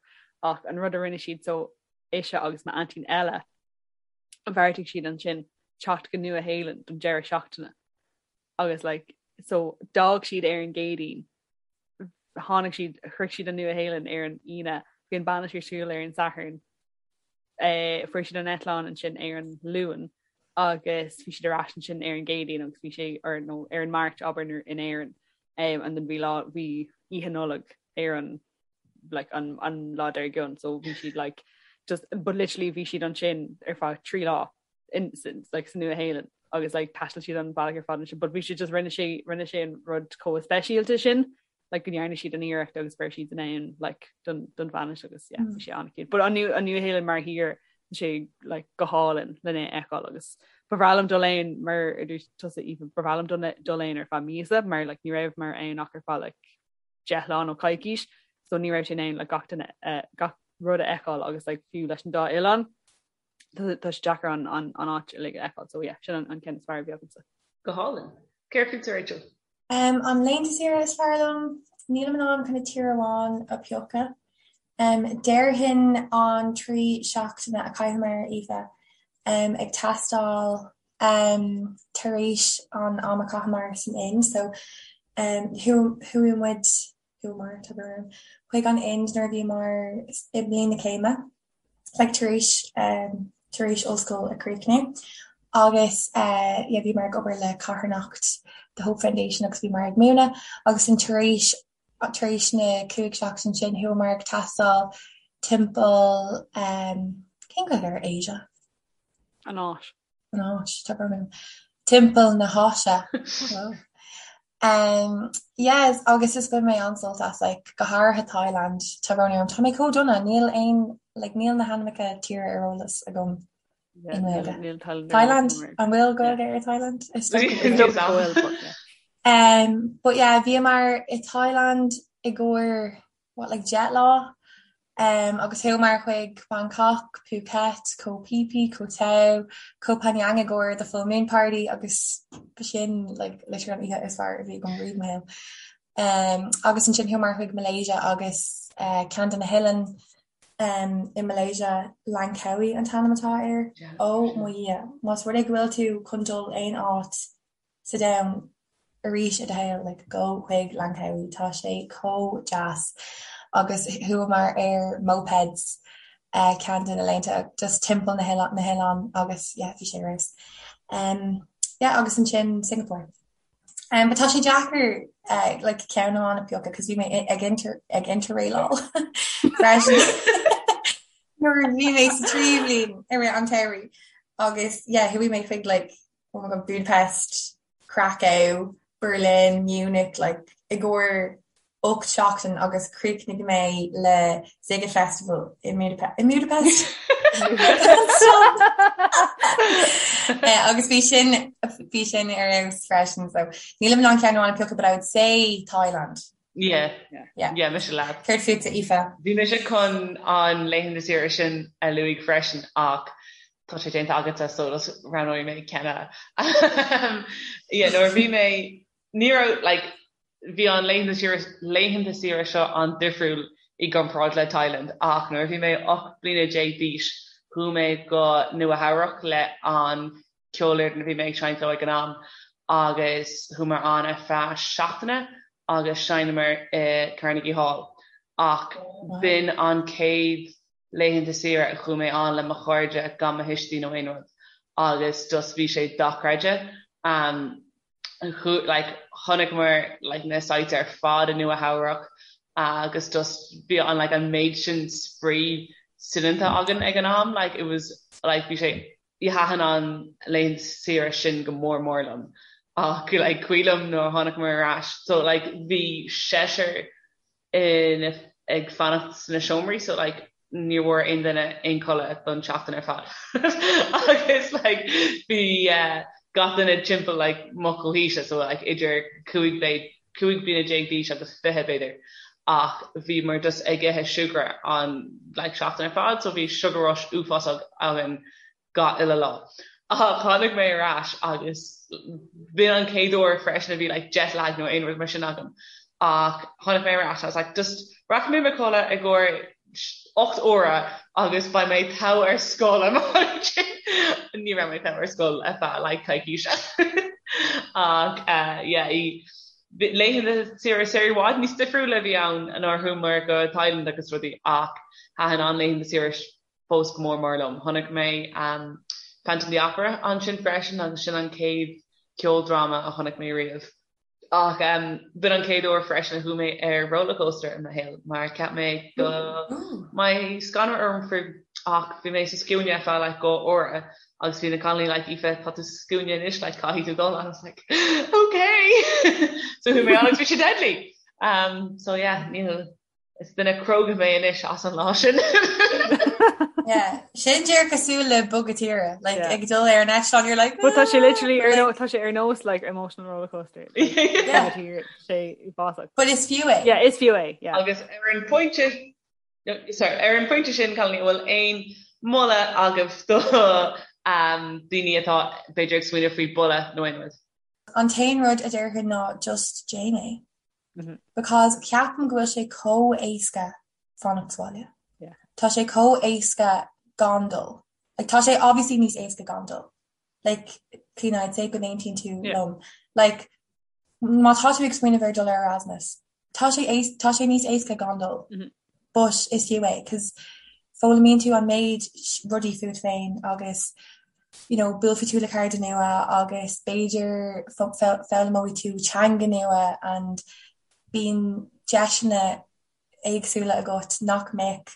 ach an rud a rinne siad so ise agus m'aintín eile bheartaigh siad ansin teacht go Nua Shéalainn don deireadh seachtaine agus like so d'fhág siad ar an gCéadaoin tháinig siad shroich siad an Nua Shéalainn ar an Aoine bhí an bainis ar siúl ar an Satharn Fuair siad an eitleán ansin ar an Luan agus bhí siad ar ais ansin ar an gCéadaoin agus bhí sé ar nó ar an Máirt abair in Éirinn and then bhí lá bhí Oíche Nollag ar an like an an lá dár gcionn so bhí siad like just but literally bhí siad ansin ar feadh 3 lá in like sa Nua Shéalainn agus like thaistil siad an bealach ar fad ansin but bhí siad just rinne sé rinne sé an rud chomh speisialta sin like go ndearna siad an iarracht agus go raibh siad in ann like don don bhainis agus yeah bhí sé an-cute. But an an Nua Shéalainn mar thír tá sé like go hálainn lena fheiceáil agus ba bhreá liom dul ann mar a dúirt tusa Aoife ba bhreá liom dul dul ann ar feadh míosa mar like ní raibh mar ann ach ar feadh like 10 lá nó coicís so ní raibh sé in ann like gach duine uh, gach rud a fheiceáil agus like fiú leis an dá oileán tá sé deacair an an an áit uilig a fheiceáil so yeah sin an an ceann is fearr a bhí agamsa. Go hálainn. Céard fútsa Rachel? Um, an laethanta saoire is fearr liom, nílim in ann kind of tír amháin a phiocadh. Um, déarfainn an 3 seachtaine a chaitheamar, Aoife, um, ag taisteal um, tar éis an am a chaitheamar san Ind, so um, chuaigh muid, chuamar, tá brón orm, chuig an Ind nuair a bhíomar i mbliain na céime. like tar éis um tar éis ollscoil a chríochnú agus eh yeah bhíomar ag obair le carthanacht The Hope Foundation agus bhíomar ag múineadh agus an tar éis tar éis na 5 seachtain sin chuamar ag taisteal timpeall um cén Ghaeilge ar Asia? An Áis. An Áis, tá brón orm. Timpeall na hÁise. Um, yes, agus is bhain mé an-sult as, like, go háirithe Thailand, tá brón orm. Tá mé chomh dona, níl aon, like, níl na hainmneacha tíre ar eolas agam i nGaeilge. Thailand, an bhfuil Gaeilge ar Thailand? Is dócha go bhfuil. Um, but yeah, bhíomar i Thailand i gcomhair what, like 10 lá um agus chuamar chuig Bangkok, Phuket, Koh Phi Phi, Koh Tao, Koh Phangan i gcomhair the full moon party agus b'shin like literally an oíche is fearr a bhí agam riamh i mo shaol. Um agus ansin chuamar chuig Malaysia agus uh, ceann de na hoileáin um, i Malaysia, Langkawi an t-ainm atá air. Ó mo Dhia, más rud é go bhfuil tú chun dul aon áit sa domhan arís i do shaol, like gabh chuig Langkawi, tá sé chomh deas agus chuamar ar mopeds eh ceann de na laethanta just timpeall na hoileán na hoileán agus yeah bhí sé ar fheabhas. Um yeah agus ansin Singapore. Um but tá sé deacair eh like ceann amháin a phiocadh cos bhí mé ag inter ag interrailáil freisin nuair a bhí mé sa tríú bliain i rith an tsamhraidh agus yeah chuaigh mé chuig like oh my god, Budapest, Krakow, Berlin, Munich, like i gcomhair 8 seachtain agus chríochnaigh mé le Sziget Festival i Budapest. Eh, agus bhí sin bhí sin ar fheabhas freisin so nílim in ann ceann amháin a phiocadh but I would say Thailand. Yeah. Yeah. Yeah, mise leat. Céard fútsa, Aoife? Bhí mise chun an laethanta saoire sin a luaigh freisin ach tá sé déanta agatsa so just roghnóidh mé ceann eile. Yeah, nuair a bhí mé, ní raibh, like, bhí an laethanta saoire, laethanta saoire seo an-difriúil i gcomparáid le Thailand ach nuair a bhí mé 18 bliana d'aois chuaigh mé go Nua Eabhrac le an ceolfhoireann a bhí mé ag seinnt leo ag an am agus chuamar ann ar feadh seachtaine agus sheinneamar i Carnegie Hall ach b'in an chéad laethanta saoire a chuaigh mé ann le mo chairde gan mo thuistí nó aon rud agus just bhí sé dochreidte. Like chonaiceamar like na sites ar fad i Nua Eabhrac agus just bhí an like an méid sin spraoi soineanta againn ag an am like it was like bhí sé thaitin an laethanta saoire sin go mór mór liom. Ach like cuimhin liom nuair a tháinig mé ar ais so like bhí seisear in ag fanacht sna seomraí so like ní bhfuair aon duine aon codladh don tseachtain ar fad agus like bhí eh, gach duine timpeall like mo chomhaoise so like idir 15 bliana d'aois agus 20 b'fhéidir ach bhíomar just ag ithe siúcra an like seachtain ar fad so bhí sugar rush uafásach againn gach uile lá. Ach tháinig mé ar ais agus b'in an chéad uair freisin a bhí like jet lag nó aon rud mar sin agam ach tháinig mé ar ais I was like just rachaidh mé i mo chodladh i gcomhair 8 uaire agus beidh mé togha ar scoil ansin. Ní raibh mé togha ar scoil ar feadh like coicíse. Ach uh, yeah, laethanta saoire saoire i bhfad níos difriúla a bhí ann nuair a chuamar go Thailand agus rudaí ach thaitin an laethanta saoire fós go mór mór liom. Chonaic mé Phantom of the Opera ansin freisin agus sin an chéad ceoldráma a chonaic mé riamh. Ach b'in an chéad uair freisin a chuaigh mé ar rollercoaster i mo shaol mar cheap mé go mbeadh scanradh orm faoi ach bhí mé sa scuaine ar feadh like dhá uaire agus bhí na cailíní like Aoife tá tú sa scuaine anois like caithfidh tú dul and I was like okay so chuaigh mé ann agus bhí sé deadly um, so yeah níl Is duine cróga mé anois as an lá sin. Yeah, sin díreach cosúil le bogadh tíre, like yeah. ag dul ar an eitleán you're like But tá sé literally ar nó tá sé ar nós like emotional roller coaster. Yeah. sé uafásach. But is fiú é. Yeah, is fiú é. Yeah. Agus ar an phointe sorry, ar an phointe sin cailíní bhfuil aon moladh agaibh do um, daoine atá b'fhéidir ag smaoineamh faoi boladh nó aon rud? An t-aon rud a déarfainn ná just déan é. Because ceapaim go bhfuil sé chomh éasca fanacht sa bhaile. Tá sé chomh éasca gan dul. Like tá sé obviously níos éasca gan dul. Like Clíona I'd say go n-aontaíonn tú liom. Like má tá tú ag smaoineamh ar dul ar Erasmus, tá sé tá sé níos éasca gan dul. But is fiú é 'cause foghlaimíonn tú an méid rudaí fút féin agus you know buailfidh tú le cairde nua agus b'fhéidir foghlaimeoidh tú teanga nua and bíonn deiseanna éagsúla agat nach mbeadh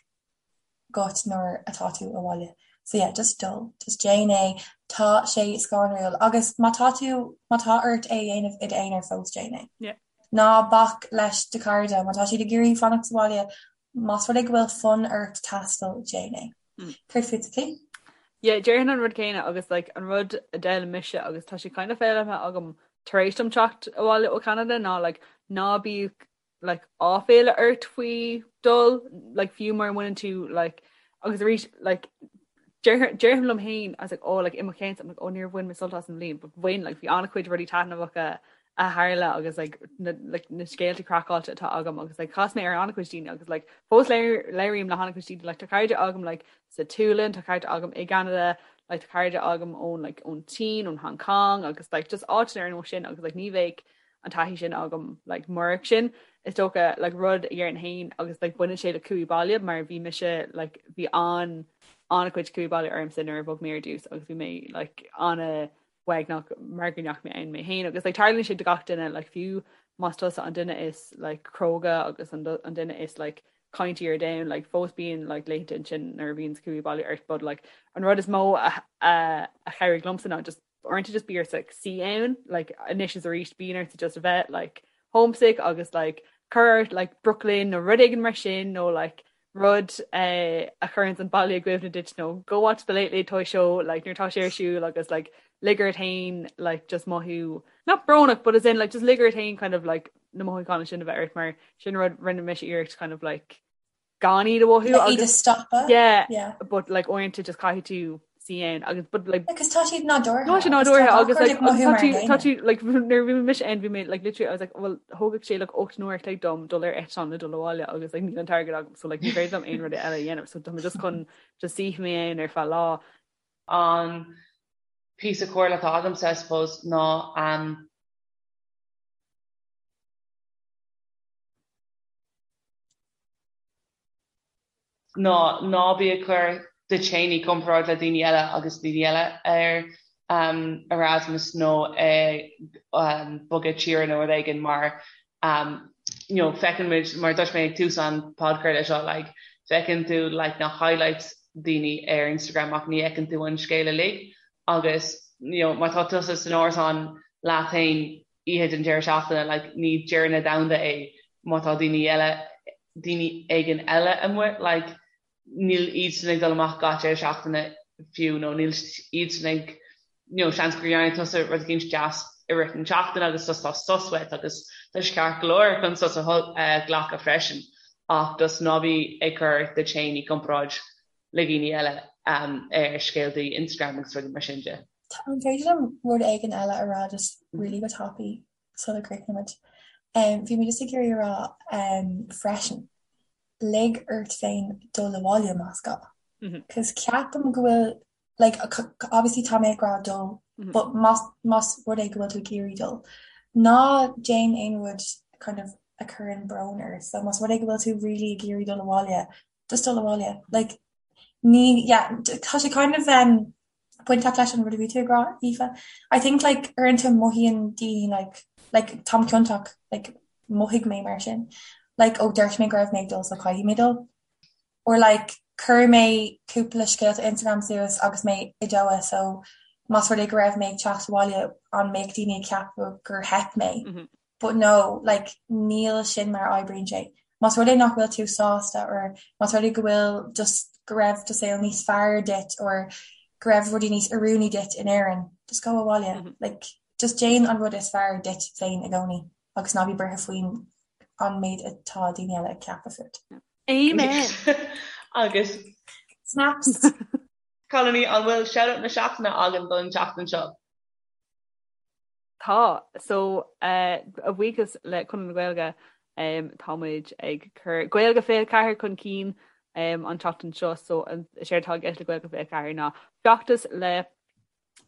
agat nuair atá tú abhaile. So yeah, just dul, just déan é, tá sé scanrúil agus má tá tú, má tá ort é a dhéanamh i d'aonar fós déan é. Yeah. Ná bac leis do chairde, má tá siad ag iarraidh fanacht sa bhaile, más rud é go bhfuil fonn ort taisteal, déan é. Céard fútsa, Clí? Yeah, déarfainn an rud céanna agus like an rud a d'fhoghlaim mise agus tá sé kind of foghlamtha agam tar éis dom teacht abhaile ó Cheanada ná like ná bíodh like áiféala ort faoi dul like fiú mura mbaineann tú like agus arís like déarfainn liom féin I was like oh like i mo cheann I'm like oh níor bhain mé sult as an bhliain but bhain like bhí an-chuid rudaí taitneamhacha a tharla agus like na like na scéalta craiceáilte atá agam agus like chas mé ar an-chuid daoine agus like fós labhraím le han-chuid daoine like tá cairde agam like sa tSualainn tá cairde agam i gCeanada like tá cairde agam ón like ón tSín ón Hong Kong agus like just áiteanna ar nós sin agus like ní bheadh an taithí sin agam like murach sin is dócha like rud a dhéarfainn féin agus like baineann sé le cumhaí baile mar bhí mise like bhí an an-chuid cumhaí baile ormsa nuair a bhog mé ar dtús agus bhí mé like an-uaigneach mar go ndeachaigh mé ann mé féin agus like tarlaíonn sé do gach duine like fiú más tusa an duine is like cróga agus an, an duine is like caintí ar domhan like fós bíonn like laethanta ansin nuair a bhíonn cumhaí baile ort but like an rud is mó a a, a chabhraigh liomsa ná just uaireanta just bí ort like suí ann like anois is arís bíonn ort just a bheith like homesick agus like cuir ort like Brooklyn nó rud éigin mar sin nó like rud eh, a chuireann an baile i gcuimhne duit nó go watch the Late Late Toy Show like nuair tá sé ar siúl agus like lig ort féin like just mothú not brónach but as in like just lig ort féin kind of like na mothúcháin sin a bheith ort mar sin rud rinne mise iarracht kind of like gan iad a mhothú Iad a agus stopadh. yeah, Yeah. but like uaireanta just caithfidh tú suí ann agus but like Because tá siad nádúrtha. Tá sé nádúrtha agus like agus tá tú tá tú like nuair a bhí mise ann bhí mé like literally I was like well thógfadh sé like 8 n-uair a chloig dom dul ar eitleán le dul abhaile agus like níl an t-airgead agam so like ní féidir liom aon rud eile a dhéanamh so tá mé just chun just suí mé ann ar feadh lá. An píosa comhairle atá agamsa I suppose ná um, ná ná bí ag cur duit féin i gcomparáid le daoine eile agus daoine eile ar Erasmus nó ag bogadh tíre nó rud éigin mar you know feiceann muid mar dúirt mé ag tús an podchraoladh seo like feiceann tú like na highlights daoine ar Instagram ach ní fheiceann tú an scéal uilig agus you know má tá tusa san árasán. leat féin oíche den deireadh seachtaine, like ní deireadh na domhanda é má tá daoine eile, daoine éigin eile amuigh, like níl iadsan ag dul amach gach deireadh seachtaine fiú nó níl iadsan ag you know seans gur dhearna tusa rud éicint deas i rith na seachtaine agus just tá sos uait agus tá sé ceart go leor chun sos a ghlacadh freisin ach just ná bí ag cur duit féin i gcomparáid le daoine eile ar scéaltaí Instagram agus rudaí mar sin de. An féidir liom rud éigin eile a rá just really go tapaidh sula gcríochnaímid? Bhí mé just ag iarraidh a rá freisin, lig ort féin dul abhaile más gá. Cos ceapaim go bhfuil, like, obviously tá mé ag rá dul, but más, más rud é go bhfuil tú ag iarraidh dul, ná déan aon rud kind of a chuireann brón ort. So más rud é go bhfuil tú really ag iarraidh dul abhaile, just dul abhaile. Like, ní, yeah, tá sé kind of um, bainteach leis an rud a bhí tú ag rá, Aoife. I think like uaireanta mothaíonn daoine like, like táim ciontach, like mhothaigh mé mar sin. Like ó dúirt mé go raibh mé ag dul so caithfidh mé dul. Or like chuir mé cúpla scéalta Instagram suas agus mé i Doha so más rud é go raibh mé ag teacht abhaile an mbeadh daoine ag ceapadh gur theip mé. Mm -hmm. But no, like níl sin mar a oibríonn sé. Más rud é nach bhfuil tú sásta or más rud é go bhfuil just go raibh do saol níos fearr duit or go raibh rudaí níos oiriúnaí duit in Éirinn, just go abhaile. Mm -hmm. Like just déan an rud is fearr duit féin i gcónaí agus ná bí buartha faoin an méid atá daoine eile ag ceapadh fút. Amen! Agus Snaps! Cailíní, an bhfuil shout-out na seachtaine againn don tseachtain seo? Tá. So, a bhuíochas le Conradh na Gaeilge, tá muid ag cur Gaeilge 24 chun cinn an tseachtain seo. So, is éard atá i gceist le Gaeilge 24 ná feachtas le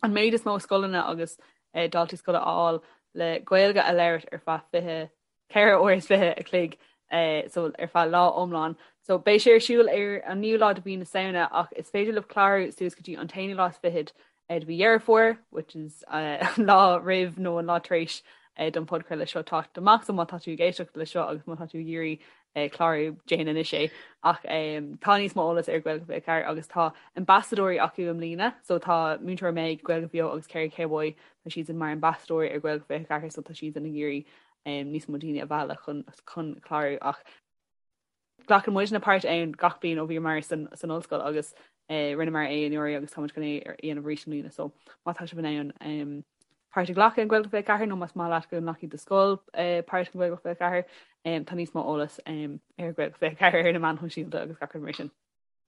an méid is mó scoileanna agus daltaí scoile a fháil le Gaeilge a labhairt ar feadh 24 uair is 20 a chloig so ar feadh lá iomlán. So beidh sé ar siúl ar an naoú lá de mhí na Samhna ach is féidir libh clárú suas go dtí an t-aonú lá is fichead de mhí Dheireadh Fómhair, which is an lá roimh nó an lá tar éis don podchraoladh seo teacht amach. So má tá tú ag éisteacht le seo agus má tá tú ag iarraidh clárú, déan anois é. Ach tá níos mó eolas ar Gaeilge 24 agus tá ambasadóirí acu i mbliana. So tá Múinteoir Meg, Gaeilge Bheo agus Kerry Cowboy, tá siadsan mar ambasadóirí ar Gaeilge 24 so tá siadsan ag iarraidh níos mó daoine a mhealladh chun chun clárú ach glacann muidne páirt ann gach bliain ó bhíomar san san ollscoil agus eh, rinneamar é anuraidh agus táimid chun é a dhéanamh arís i mbliana so má tá sibh in ann um, páirt a ghlacadh in Gaeilge 24 nó más maith leat go nglacfaidh do scoil eh, páirt in Gaeilge 24 um, tá níos mó eolas um, ar Gaeilge 24 ar na meáin shóisialta agus gach rud mar sin.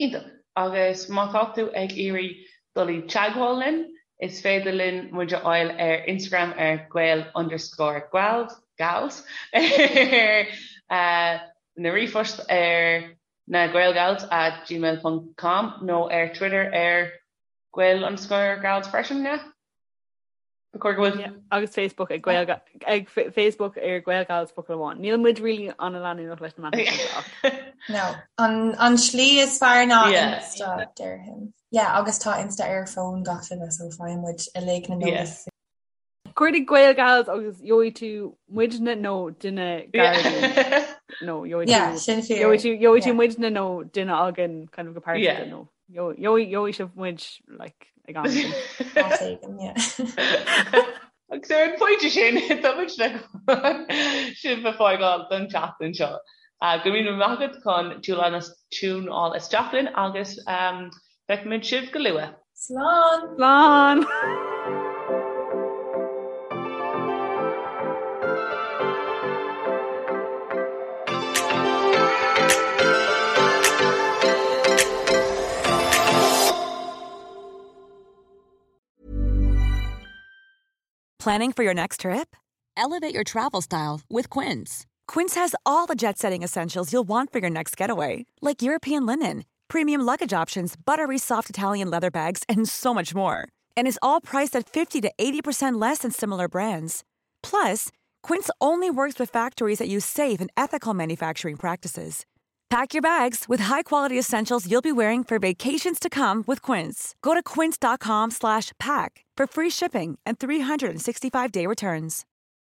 Iontach. Agus má tá tú ag iarraidh dul i dteagmháil linn, is féidir linn muid a fháil ar Instagram ar gael underscore gals, gals, ar na ríomhphost ar na gaelgals at gmail ponc com nó ar Twitter ar gael underscore gals freisin, yeah? Ba chóir go bhfuil. Yeah, agus Facebook ag Gael ag Facebook ar Gaelgals focal amháin. Níl muid really an-leanúnach leis na meáin shóisialta ach. No, an an slí is fearr ná yeah. Insta déarfainn. Yeah, agus tá Insta ar fón gach duine so faigheann muid uilig na yeah. Cuardaigh Gaelgals agus gheobhaidh tú muidne nó duine gar nó gheobhaidh yeah, tú gheobhaidh tú gheobhaidh tú muidne nó duine againn kind of go pearsanta nó Gheobhaidh sibh muid like ag am éigin. Áit éigin, yeah. Agus ar an phointe sin, tá muid le sibh a fhágáil don tseachtain seo. Go raibh míle maith agat chun tiúnáil isteach linn agus feicfimid sibh go luath. Slán! Slán! Planning for your next trip? Elevate your travel style with Quince. Quince has all the jet setting essentials you'll want for your next getaway, like European linen, premium luggage options, buttery soft Italian leather bags, and so much more. And is all priced at 50 to 80% less than similar brands. Plus, Quince only works with factories that use safe and ethical manufacturing practices. Pack your bags with high-quality essentials you'll be wearing for vacations to come with Quince. Go to quince.com slash pack for free shipping and 365-day returns.